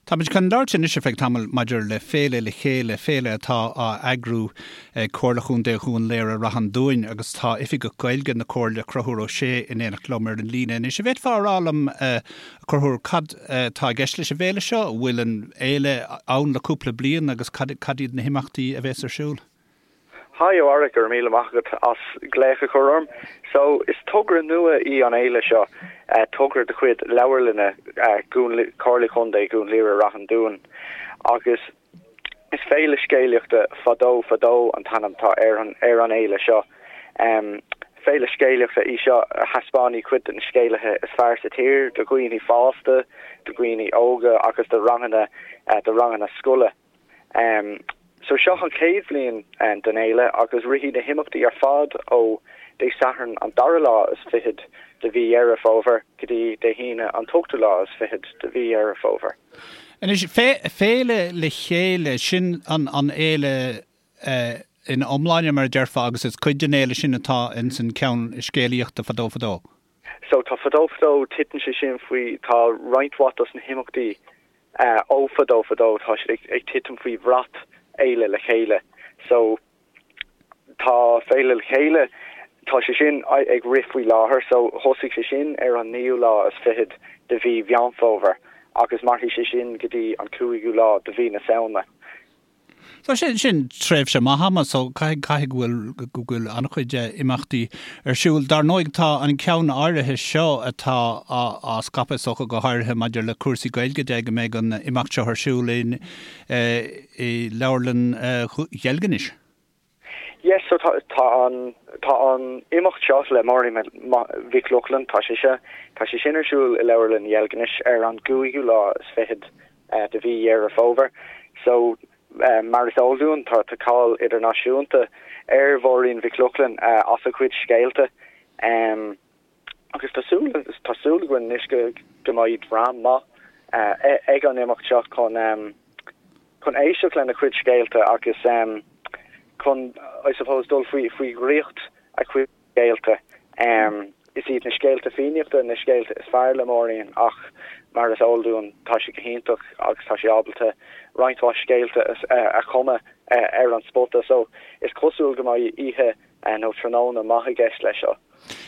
Táimid chun labhairt anois ar feadh tamaill maidir le Féile le Chéile, féile atá á eagrú ag Comhairle Chontae Dhún Laoghaire-Rath an Dúin agus tá Oifigeach Gaeilge na Comhairle, Conchúr Ó Sé, in éineacht liom ar an líne anois. An bhféadfá a rá liom, a Chonchúir, cad atá i gceist leis an bhféile seo? An bhfuil an fhéile ann le cúpla bliain agus cad iad na himeachtaí a bhéas ar siúl? Hi, a Bharra, go raibh míle maith agat as glaoch a chur orm. So, is togra nua í an fhéile seo, togra de chuid Leabharlainne Chomhairle Chontae Dhún Laoghaire-Rath an Dúin agus is Féile Scéalaíochta Fadó Fadó an t-ainm atá ar an ar an fhéile seo. Féile scéalaíochta í seo a thaispeánfaidh cuid de na scéalaithe is fearr sa tír do dhaoine fásta, do dhaoine óga agus do ranganna do ranganna scoile. So seo an chéad bhliain den fhéile agus rithfidh na himeachtaí ar fad ó Dé Sathairn an dara lá is fichead de mhí Dheireadh Fómhair go dtí Dé hAoine an t-ochtú lá is fichead de mhí Dheireadh Fómhair. Anois, Féile le Chéile, sin an fhéile ina iomláine mar a déarfá agus is cuid den fhéile sin atá ins an ceann scéalaíochta Fadó Fadó. So tá Fadó Fadó, titeann sé sin faoi, tá roinnt mhaith dos na himeachtaí ó Fadó Fadó, tá siad ag titim faoi bhrat Fhéile le Chéile. So tá Féile le Chéile, tá sé sin ag rith faoi láthair, so thosaigh sé sin ar an naoú lá is fichead de mhí Mheán Fómhair agus mairfidh sé sin go dtí an cúigiú lá de mhí na Samhna. So sin, sin tréimhse maith ama, so caithfidh, caithfidh go bhfuil, go bhfuil an-chuid imeachtaí ar siúl. Dar ndóigh tá an ceann áirithe seo atá á, á scaipeadh is dócha go háirithe maidir le cúrsaí Gaeilge de go mbeidh an imeacht seo ar siúl in, i Leabharlann Dheilginis. Yes, so tá, tá an, tá an imeacht seo le Máirín Mhic Lochlainn, tá sé seo, tá sé sin ar siúl i Leabharlann Dheilginis ar an gcúigiú lá is fichead de mhí Dheireadh Fómhair. So, mar is eol dúinn, tá, tá cáil idirnáisiúnta ar Mháirín Mhic Lochlainn as a cuid scéalta. Agus tá súil, tá súil againn anois go, go mbeidh dream maith ag an imeacht seo chun, chun éisteacht lena cuid scéalta agus chun, I suppose, dul faoi faoi dhraíocht a cuid scéalta. Is iad na scéalta Fiannaíochta na scéalta is fearr le Máirín ach mar is eol dúinn tá sí go hiontach agus tá sí ábalta roinnt mhaith scéalta a chumadh ar an spota so is cosúil go mbeidh oíche nó tráthnóna maith i gceist leis seo.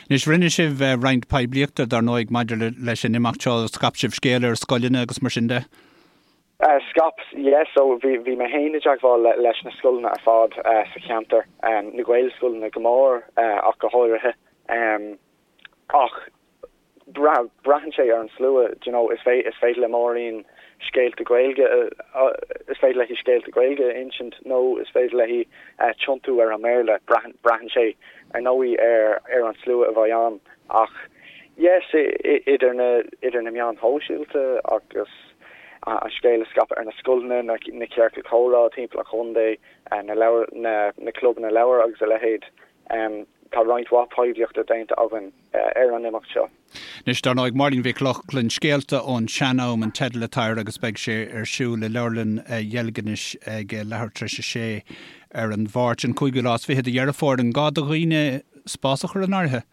Anois rinne sibh roinnt poiblíochta dar ndóigh maidir leis an imeacht seo, scaip sibh scéal ar scoileanna agus mar sin de? Scaip, yeah, so bhí, bhí mé féin i dteagmháil leis na scoileanna ar fad sa cheantar, na Gaelscoileanna go mór ach go háirithe. Ach braitheann sé ar an slua, do you know, is is féidir le Máirín scéalta Gaeilge, is féidir léi scéalta Gaeilge a insint nó is féidir léi tiontú ar an mBéarla, braitheann, braitheann sé ar ndóigh ar, ar an slua a bheidh ann. Ach yes, idir na, idir na meáin shóisialta agus an scéal a scaipeadh ar na scoileanna, na ciorcail chomhrá timpeall an chontae, na leabhar, na clubanna leabhar agus a leithéid. Tá roinnt mhaith poiblíochta déanta againn ar an imeacht seo. Anois, dar ndóigh, Máirín Mhic Lochlainn, Scéalta ón Sean-Am an teideal atá air agus beidh sé ar siúl i Leabharlann Dheilginis ag leathuair tar éis a sé ar an Mháirt, an cúigiú lá is fiche de Dheireadh Fómhair. An gá do dhaoine spás a chur in áirithe?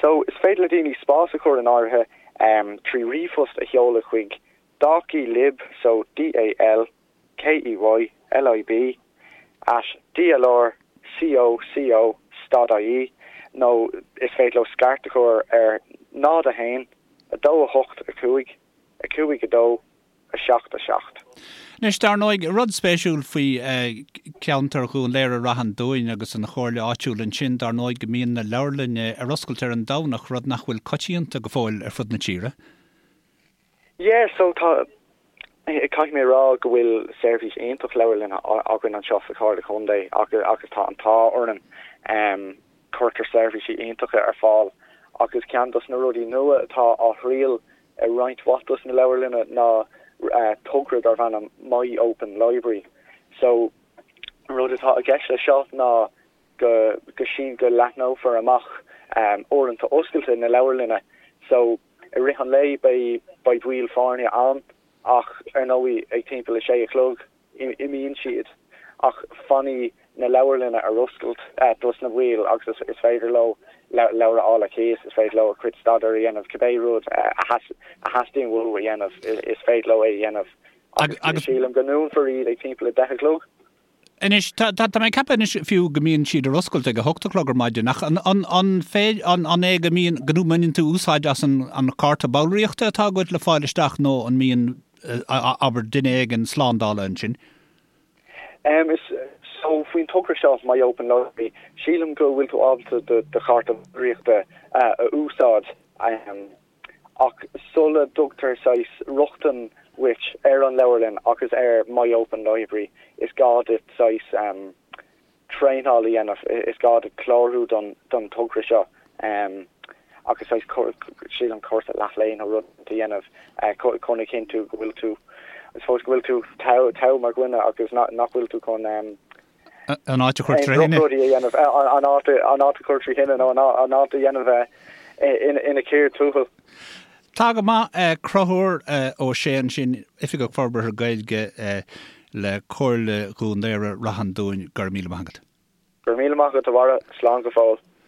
So, is féidir le daoine spás a chur in áirithe trí ríomhphost a sheoladh chuig dalkeylib, so D-A-L-K-E-Y-L-I-B, at dlrcoco stad ie nó is féidir leo scairt a chur ar 0 1 2 8 5 5 2 7 7. Anois, dar ndóigh, rud spéisiúil faoi cheantar Dhún Laoghaire-Rath an Dúin agus an chomhairle áitiúil ansin, dar ndóigh, go mbíonn na leabharlainne ar oscailt ar an Domhnach, rud nach bhfuil coitianta go fóill ar fud na tíre. Yeah, so tá, caithfidh mé a rá go bhfuil seirbhís iontach leabharlainne againn anseo sa Chomhairle Contae agus tá an t-ádh orainn. Cuirtear seirbhísí iontacha ar fáil agus ceann dos na rudaí nua atá á thriail i roinnt mhaith dos na leabharlanna ná togra darb ainm My Open Library. So, an rud atá i gceist leis seo ná go go sín go leathnófar amach uaireanta oscailte na leabharlainne. So, i rith an lae beidh beidh baill foirne ann ach ar ndóigh ag timpeall a sé a chlog imíonn siad ach fanfaidh na leabharlanna ar oscailt dos na baill agus is féidir leo. Leabhar a fháil ar cíos, is féidir leo a gcuid staidéir a dhéanamh, cibé rud a theastaíonn uathu a dhéanamh, is féidir leo é a dhéanamh. Agus sílim go ndúnfar iad ag timpeall 10 a chlog. Anois, tá mé ag ceapadh anois fiú go mbíonn siad ar oscailt ag 8 a chlog ar maidin, ach an an é go mbíonn, go mbaineann tú úsáid as an chárta ballraíochta atá agat le fáil isteach nó an mbíonn, abair, duine éigin slándála ansin? Em, so faoin togra seo, My Open Library, sílim go bhfuil tú ábalta do do chárta ballraíochta a úsáid, ach sula dtugtar saghas rochtain dhuit ar an leabharlann agus ar My Open Library, is gá duit saghas traenáil a dhéanamh, is gá duit clárú don don togra seo. Agus saghas, sílim, cúrsa leath-lae nó rud a dhéanamh chun a chinntiú go bhfuil tú, I suppose, go bhfuil tú togha mar dhuine agus nach bhfuil tú chun an áit a chur trí thine. Rudaí a dhéanamh, an áit an áit a chur trí thine nó an áit a dhéanamh ina cíor tuathail. Tá go maith. Conchúr Ó Sé ansin, Oifigeach Forbartha Gaeilge le Comhairle Dhún Laoghaire Rath an Dúin, go raibh míle maith agat. Go raibh míle maith agat a Bharra, slán go fóill.